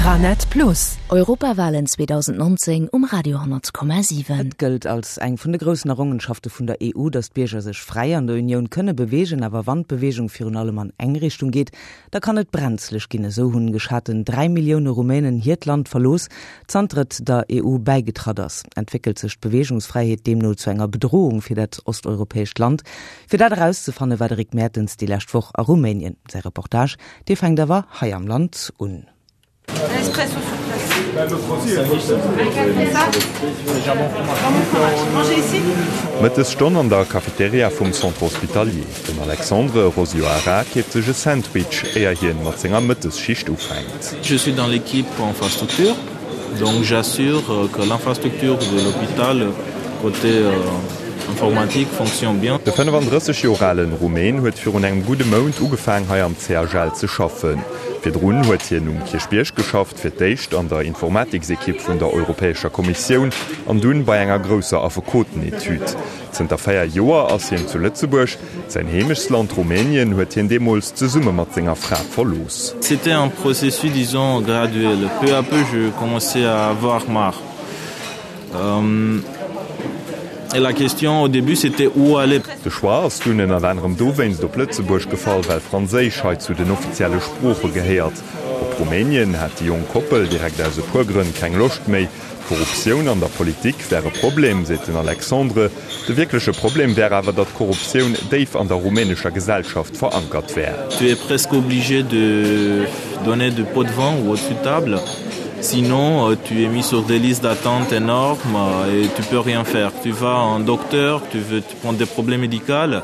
Eranet Plus. Europawalen 2019 um Radio 10,7. Et gëllt als eng vun de groussen Errongenschafte vun der EU, datt d'Bierger sech fräi an der Unioun kënne beweegen. Awer wann d'Beweegung virun allem an eng Richtung geet, da kann et brenzlech ginn. Esou hunn geschaten 3 Millioune Rumänen hiert Land verlooss, zanter et der EU bäigetratt ass. Entwéckelt sech d'Beweegungsfräiheet deemno zu enger Bedrohung fir dat osteuropäescht Land? Fir dat erauszefanne war de Rick Mertens déi lescht Woch a Rumänien. Säi Reportage, dee fänkt awer hei am Land un. Mëttesstonn an der Cafeteria vum Centre Hospitalier. Den Alexandre Rosioara keeft sech e Sandwich, éier hien mat senger Mëttesschicht ufänkt. Je suis dans l'équipe infrastructure, donc j'assure que l'infrastructure de l'hôpital côté informatique fonctionne bien. De 35 Joer ale Rumän huet virun engem gudde Mount ugefaang hei am CHL ze schaffen. Virdrun huet hien um Kierchbierg geschafft, fir d'éischt an der Informatiksekipp vun der Europäescher Kommissioun an dunn bei enger grousser Affekotenetüd. Zënter 4 Joer ass hien zu Lëtzebuerg. Säin Heemechtsland Rumänien huet hien deemools zesumme mat senger Fra verlooss. C'était un processus disons graduel. Peu à peu je commençais à avoir marre. Et la question au début c'était où aller? De Choix ass dunn ënnert anerem dowéinst op Lëtzebuerg gefall, well Franséisch hei zu den offizielle Sprooche gehéiert. Op Rumänien hat déi jonk Koppel direkt aus e puer Grënn keng Loscht méi. D'Korruptioun an der Politik wär e Problem, seet den Alexandre. De wierkleche Problem wär awer, datt d'Korruptioun déif an der rumänescher Gesellschaft verankert wär. Tu es presque obligé de donner du pot de vin ou au-dessus de table, sinon tu es mis sur des listes d'attente énormes et tu peux rien faire. Tu vas à un docteur, tu veux prendre des problèmes médicaux,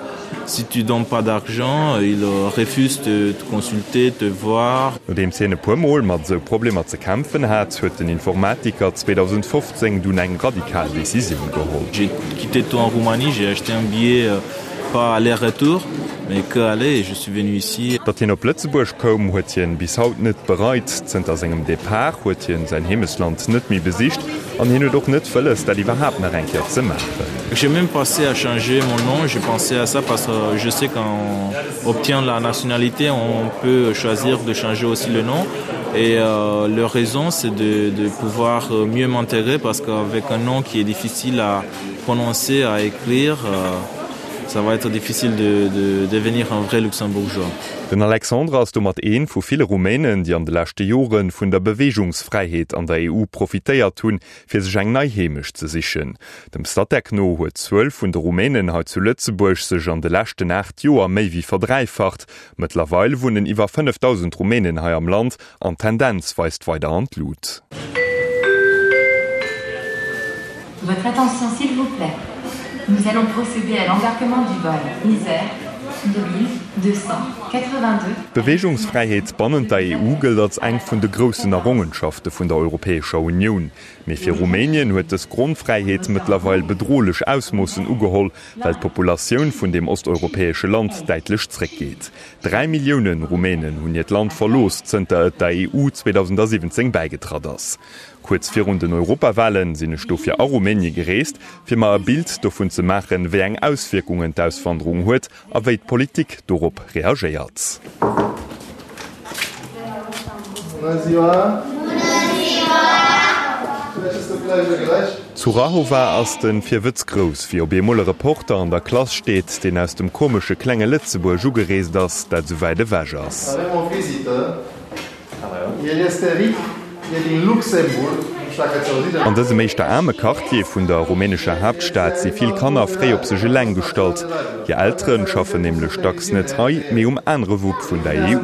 Si tu donnes pas d'argent, ils refusent de te consulter, te voir. Nodeems hien e puer Mol mat esou Problemer ze kämpfen hat, huet den Informatiker 2015 dunn eng radikal Decisioun geholl. J'ai quitté tout en Roumanie, j'ai acheté un billet pas aller-retour, mais que aller et je suis venu ici. Datt hien op Lëtzebuerg koum, huet hien bis haut net bereit. Zënter sengem Depart huet hien säin Heemechtsland net méi besicht an hien huet och net wëlles, dat iwwerhaapt nach eng Kéier ze maachen. J'ai même pensé à changer mon nom, j'ai pensé à ça parce que je sais qu'on obtient la nationalité, on peut choisir de changer aussi le nom. Et euh, leur raison, c'est de, de pouvoir mieux m'intégrer parce qu'avec un nom qui est difficile à prononcer, à écrire, euh, ça va être difficile de, de devenir un vrai Luxembourgeois. Den Alexandre ass domat een vu ville Rumänen, déi an de leschte Jore vun der Beweegungsfräiheet an der EU profitéiert hunn, fir sech eng nei Heemecht ze sichen. Dem Statec no huet d'Zuel vun de Rumänen hei zu Lëtzebuerg sech an de leschten 8 Joer méi wéi verdräifacht. Mëttlerweil wunnen iwwer 5.000 Rumänen hei am Land an d'Tendenz weist weider an d'Lut. Votre attention s'il vous plaît. Nous allons procéder à l'embarquement du vol Isère 2282. D'Beweegungsfräiheet bannent der EU gëllt als eng vun de groussen Errongenschafte vun der Europäescher Unioun. Mee fir Rumänien huet dës Grondfräiheet mëttlerweil bedrohlech Ausmoossen ugeholl, well d'Populatioun vun deem osteuropäesche Land däitlech zréckgeet. 3 Millioune Rumänen hunn hiert Land verlooss, zënter et der EU 2017 bäigetratt ass. Kuerz virun den Europawalen sinn ech dofir a Rumänie gereest, fir mer e Bild dovun ze maachen, wéi eng Auswierkungen d'Auswanderung huet a wéi d'Politik dorop reagéiert. Zu Rahova ass de Virwëtz grouss, wéi op eemol e Reporter an der Klass steet, deen aus dem komesche klenge Lëtzebuerg ugereest ass, dat esou wäit ewech ass. An dësem éischter aarme Quartier vun der rumänescher Haaptstad si vill Kanner fréi op sech eleng gestallt. Hir Eltere schaffen nämlech dacks net hei, mee um anere Wupp vun der EU.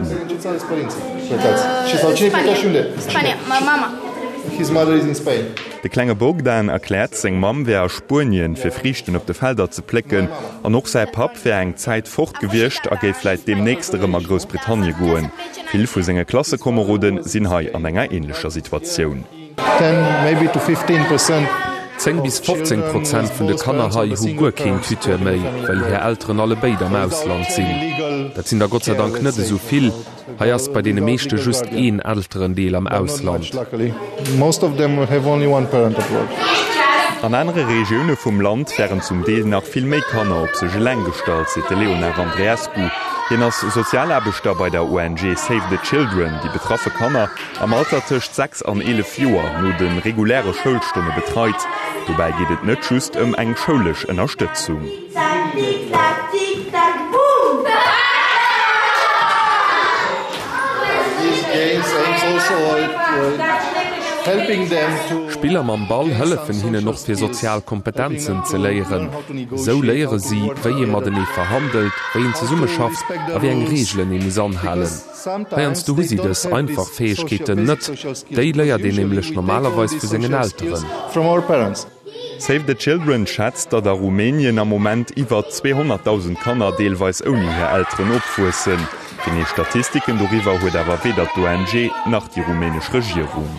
De klenge Bogdan erkläert, seng Mamm wär a Spuenien, fir Friichten op de Felder ze plécken, an och säi Papp wär eng Zäit fort gewiescht a géif vläit deemnächst erëm a Groussbritannie goen. Vill vu senge Klassekomerode sinn hei an enger änlecher Situatioun. 10 bis 15 Prozent vun de Kanner hei hu guer keen Tuteur méi, well hir Elteren allebéid am Ausland sinn. Dat sinn der Gott sei Dank net esou vill. Hei ass bei deene meeschte just een Elterendeel am Ausland. An anere Regioune vum Land wären zum Deel nach vill méi Kanner op sech eleng gestallt, seet de Léonard Andreescu. Hien ass Sozialaarbechter bei der ONG Save the Children, déi betraffe Kanner am Alter tëscht 6 an 11 Joer no de reguläre Schoulstonne betreit. Dobäi geet et net just ëm eng schoulesch Ënnerstëtzung. Spiller mam Ball hëllefen hinnen och fir sozial Kompetenzen ze léieren. Esou léiere si, wéi ee matenee verhandelt, wéi een zesummeschafft a wéi eng Reegelen ee muss anhalen. Heiansdo hu si dës einfach Fäegkeeten net, déi léiert een nämlech normalerweis vu sengen Elteren. Save the Children schätzt, datt a Rumänien am Moment iwwer 200.000 Kanner deelweis ouni hir Elteren opwuessen. Genee Statistiken doriwwer huet awer weder d'ONG nach déi rumänesch Regierung.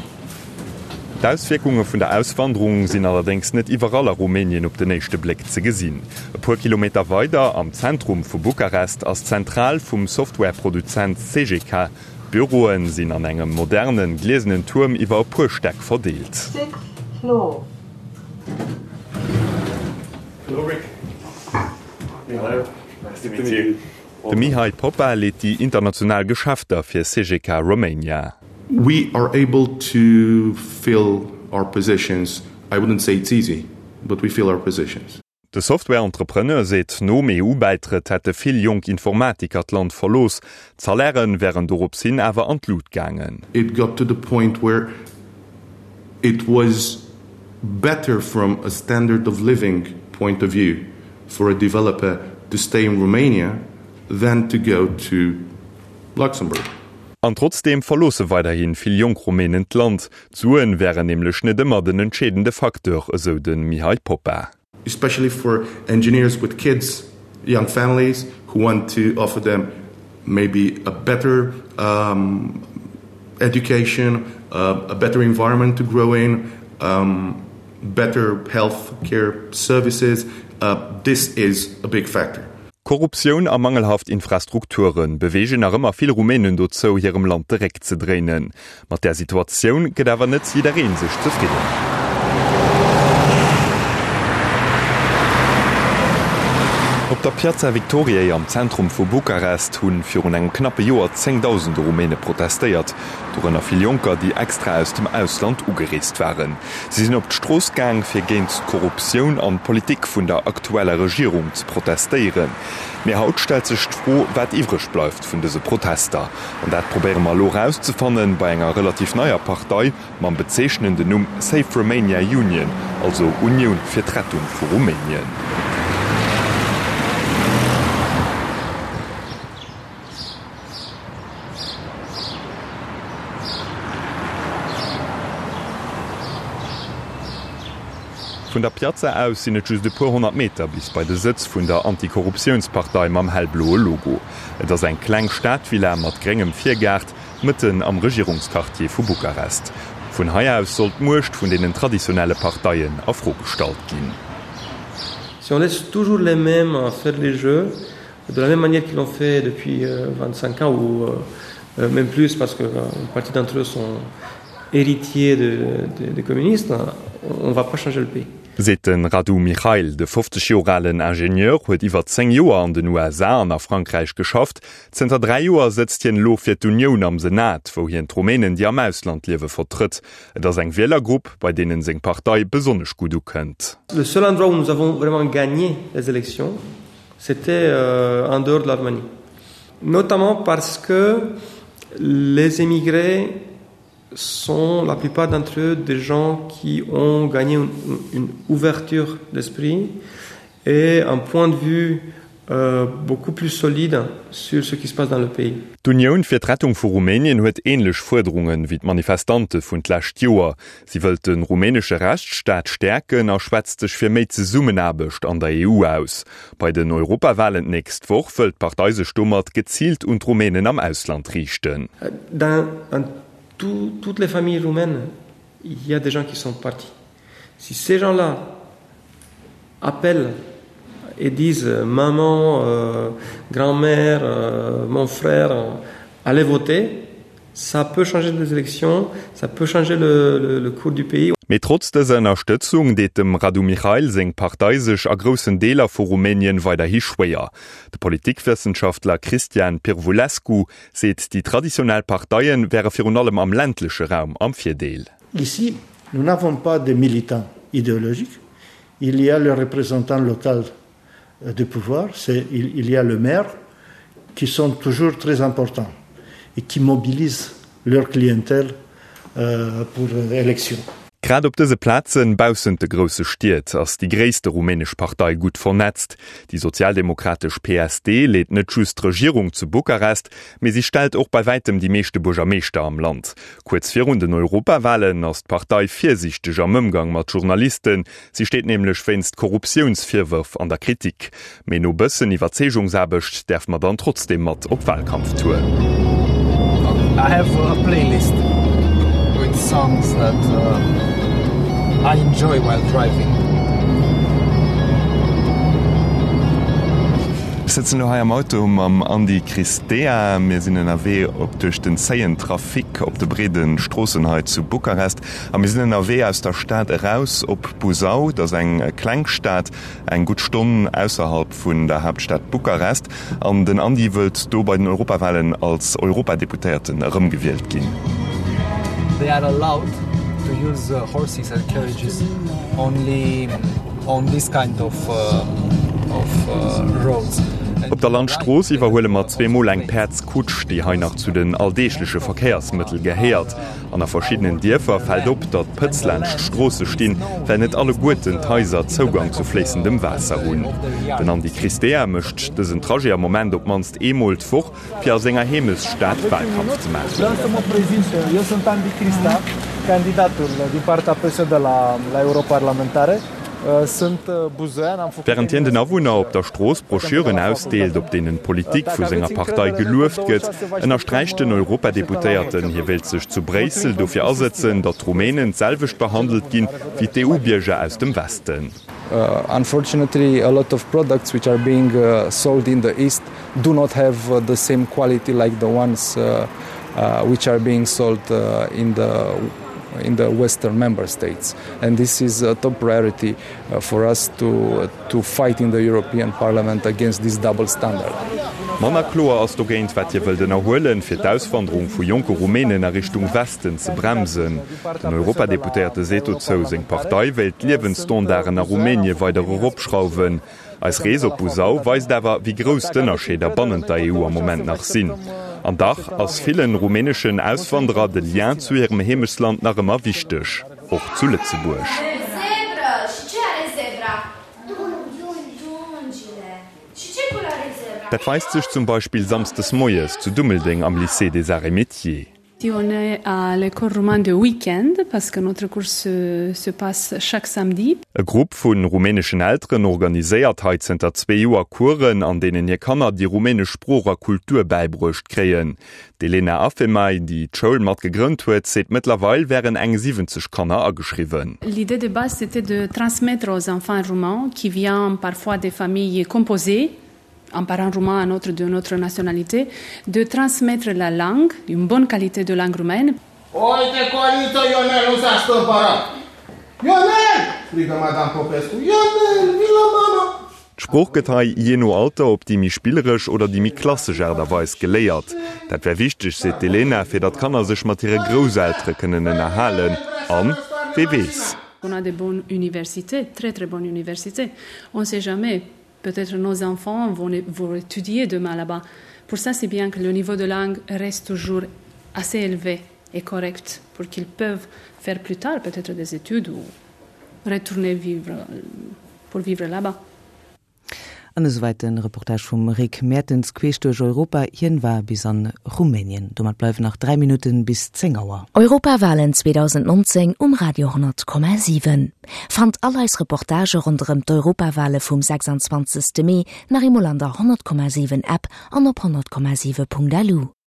D'Auswierkunge vun der Auswanderung sinn allerdéngs net iwwerall a Rumänien op den éischte Bléck ze gesinn. E puer Kilometer weider, am Zentrum vu Bukarest, ass d'Zentral vum Softwareproduzent Cegeka. D'Büroe sinn an engem modernen, gliesenen Tuerm iwwer e puer Stäck verdeelt. De Mihai Popa leet déi international Geschäfter fir Cegeka Romania. We are able to fill our positions, I wouldn't say it's easy, but we fill our positions. De Software-Entrepreneur seet, nom EU-Bäitrëtt hätte vill jonk Informatiker d'Land verlooss, d'Salairen wären dorops hin awer an d'Lut gaangen. It got to the point where it was better from a standard of living point of view for a developer to stay in Romania than to go to Luxembourg. An trotzdeem verloosse weiderhi vill jonk Rumänen d'Land. D'Suen wären nämlech net ëmmer den entscheedende Facteur, esou de Mihai Popa. Especially for engineers with kids, young families who want to offer them maybe a better um, education, uh, a better environment to grow in, um, better health care services. Uh, this is a big factor. Korruptioun a mangelhaft Infrastrukture beweegen nach ëmmer vill Rumänen dozou, hirem Land de Réck ze dréinen. Mat där Situatioun gëtt awer net jidderee sech zefridden. Op der Piața Victoriei am Zentrum vu Bukarest hu virun engem knappe Joer zéngdausende Rumäne protestéiert, dorënner vill Jonker, déi extra aus dem Ausland ugereest waren. Si sinn op d'Strooss gaang, fir géint d'Korruptioun an d'Politik vun der aktueller Regierung ze protestéieren. Mee haut stellt sech d'Fro, wat iwwreg bleift vun dëse Protester. An dat probéiere mer elo erauszefannen bei enger relativ neier Partei mam bezeechnenden Numm Save Romania Union, also Unioun fir d'Rettung vu Rumänien. Vun der Piazza aus sinn et just e puer 100 Meter bis bei de Sëtz vun der Antikorruptiounspartei mam hellbloe Logo. Et ass eng kleng Stadvilla mat gréngem Virgaart, mëtten am Regierungsquartier vu Bukarest. Vun hei aus soll d'Muecht vun deenen traditionelle Parteien a Fro gestallt ginn. Si on laisse toujours les mêmes faire les jeux, de la même manière qu'ils l'ont fait depuis 25 ans ou même plus parce que une partie d'entre eux sont héritiers de, de, de communistes, on va pas changer le pays. Seet de Radu Michail. De 50 Joer alen Ingenieur huet iwwer 10 Joer an den USA an a Frankräich geschafft. Zënter 3 Joer sëtzt hien elo fir d'Unioun am Senat, wou hien d'Rumänen, déi am Ausland liewe, vertrëtt. Et ass eng Wielergrupp, bei deenen seng Partei besonnesch gutt ukënnt. Le seul endroit où nous avons vraiment gagné les élections, c'était en dehors de la Roumanie. Notamment parce que les émigrés sont la plupart d'entre eux des gens qui ont gagné une, une ouverture d'esprit et un point de vue euh, beaucoup plus solide sur ce qui se passe dans le pays. D'Unioun fir d'Rettung vu Rumänien huet ähnlech Fuerderungen wéi d'Manifestante vun d'lescht Joer. Si wëllt de rumänesche Rechtsstaat stäerken a schwätzt sech fir méi Zesummenaarbecht an der EU aus. Bei den Europawalen d'nächst Woch wëll d'Partei sech domat geziilt un d'Rumänen am Ausland riichten. Dans toutes les familles roumaines, il y a des gens qui sont partis. Si ces gens-là appellent et disent maman, euh, grand-mère, euh, mon frère, allez voter, Ça peut changer les élections, ça peut changer le, le, le cours du pays. Mee trotz dëser Ënnerstëtzung deet dem Radu Mihail seng Partei sech a groussen Deeler vu Rumänien weiderhi schwéier. De Politikwëssenschaftler Cristian Pirvulescu seet, déi traditionell Parteie wäre virun allem am ländleche Raum am Virdeel. Ici, nous n'avons pas de militants idéologiques, il y a le représentant local de pouvoir, c'est il y a le maire qui sont toujours très importants et qui mobilisent leur clientèle euh, pour l'élection. Grad op dëse Plazen baussent de grousse Stied ass déi gréisste rumänesch Partei gutt vernetzt. Déi sozialdemokratesch PSD leet net just d'Regierung zu Bukarest, mee si stellt och bei wäitem déi meeschte Buergermeeschter am Land. Kuerz virun den Europawalen ass d'Partei virsiichteg am Ëmgang mat Journalisten. Si steet nämlech wéinst Korruptiounsvirwërf an der Kritik. Mee no bëssen Iwwerzeegungsaarbecht däerf mer dann trotzdeem mat op Walkampftour. I have a playlist with songs that I enjoy while driving. Ech sëtzen elo hei am Auto mam Andy Cristea. Mir sinn ënnerwee op duerch den zéien Trafic op de breede Stroossen hei zu Bukarest. A mir sinn ënnerwee aus der Stad eraus op Buzău. Dat ass eng kleng Stad, eng gutt Stonn ausserhalb vun der Haaptstad Bukarest. An den Andy wëllt do bei den Europawalen als Europadeputéierten erëmgewielt ginn. They are allowed to use horses and carriages only on this kind of of roads. Op der Landstrooss iwwerhuele mer zweemol eng Päerdskutsch, déi hei nach zu den alldeegleche Verkéiersmëttel gehéiert. An a verschiddenen Dierfer fält op, datt Pëtz laanscht d'Stroosse stinn, well net alleguerten d'Haiser Zougang zu fléissendem Waasser hunn. Den Andy Cristea mécht dësen Trajet am Moment op d'mannst eemol d'Woch, fir a senger Heemechtsstad Walkampf ze maachen. Wärend hien den Awunner op der Strooss Broschüren ausdeelt, op deenen d'Politik vu senger Partei gelueft gëtt, ënnersträicht den Europadeputéierten, hie wéilt sech zu Bréissel dofir asëtzen, datt d'Rumänen d'selwecht behandelt ginn, wéi d'EU-Bierger aus dem Westen. Unfortunately, a lot of products which are being sold in the East do not have the same quality like the ones which are being sold in the in the western member states and this is a top priority uh, for us to to fight in the European Parliament against this double standard. Manner kloer ass dogéint, wat hie wëllt ënnerhuelen, fir d'Auswanderung vu jonke Rumänen a Richtung Westen ze bremsen. Den Europadeputéierte seet dozou, seng Partei wéilt d'Liewensstandarden a Rumänie weider eropschrauwen. Eis Rees op Buzău weist awer, wéi grouss d'Ënnerscheeder bannent der EU am Moment nach sinn. An dach ass villen rumäneschen Auswanderer de Lien zu hirem Heemechtsland nach ëmmer wichteg, och zu Lëtzebuerg. Dat weist sech zum Beispill samsdes moies zu Dummeldeng am Lycée des Arts et Métiers. On est à l'école roumaine de week-end parce que notre cours se, se passe chaque samedi. E Grupp vu rumäneschen Elteren organiséiert hei zënter zwee Joer Coursen, an deenen hir Kanner déi rumänesch Sprooch a Kultur bäibruecht kréien. D'Elena Afemai, déi d'Schoul mat gegrënnt huet, seet mëttlerweil wären eng 70 Kanner ageschriwwen. L'idée de base c'était de transmettre aux enfants roumains qui viennent parfois des familles composées, un parent roumain, un autre de notre nationalité, de transmettre la langue, une bonne qualité de langue roumaine. Uite, Coriță, Ionel nu s-a stâmpărat! Ionel! strigă Madame Popescu. Ionel, vin la mama! D'Sprooch gëtt hei jee no Alter op déi méi spilleresch oder déi méi klassesch Aart a Weis geléiert. Dat wär wichteg, seet d'Elena, fir datt d'Kanner sech mat hire Grousseltere kënnen ënnerhalen. An, wee weess? On a de bonnes universités, très très bonnes universités. On sait jamais, Peut-être nos enfants vont, vont étudier demain là-bas. Pour ça, c'est bien que le niveau de langue reste toujours assez élevé et correct pour qu'ils peuvent faire plus tard peut-être des études ou retourner vivre pour vivre là-bas. An esouwäit de Reportage vum Rick Mertens queesch duerch Europa. Hien war bis an Rumänien. Domat bleiwen nach 3 Minutten bis 10 Auer. Europawalen 2019 um Radio 10,7. Fannt all eis Reportagë ronderëm d'Europawale vum 26. Mee nach eemol an der 100,7 App an op 100,7.lu.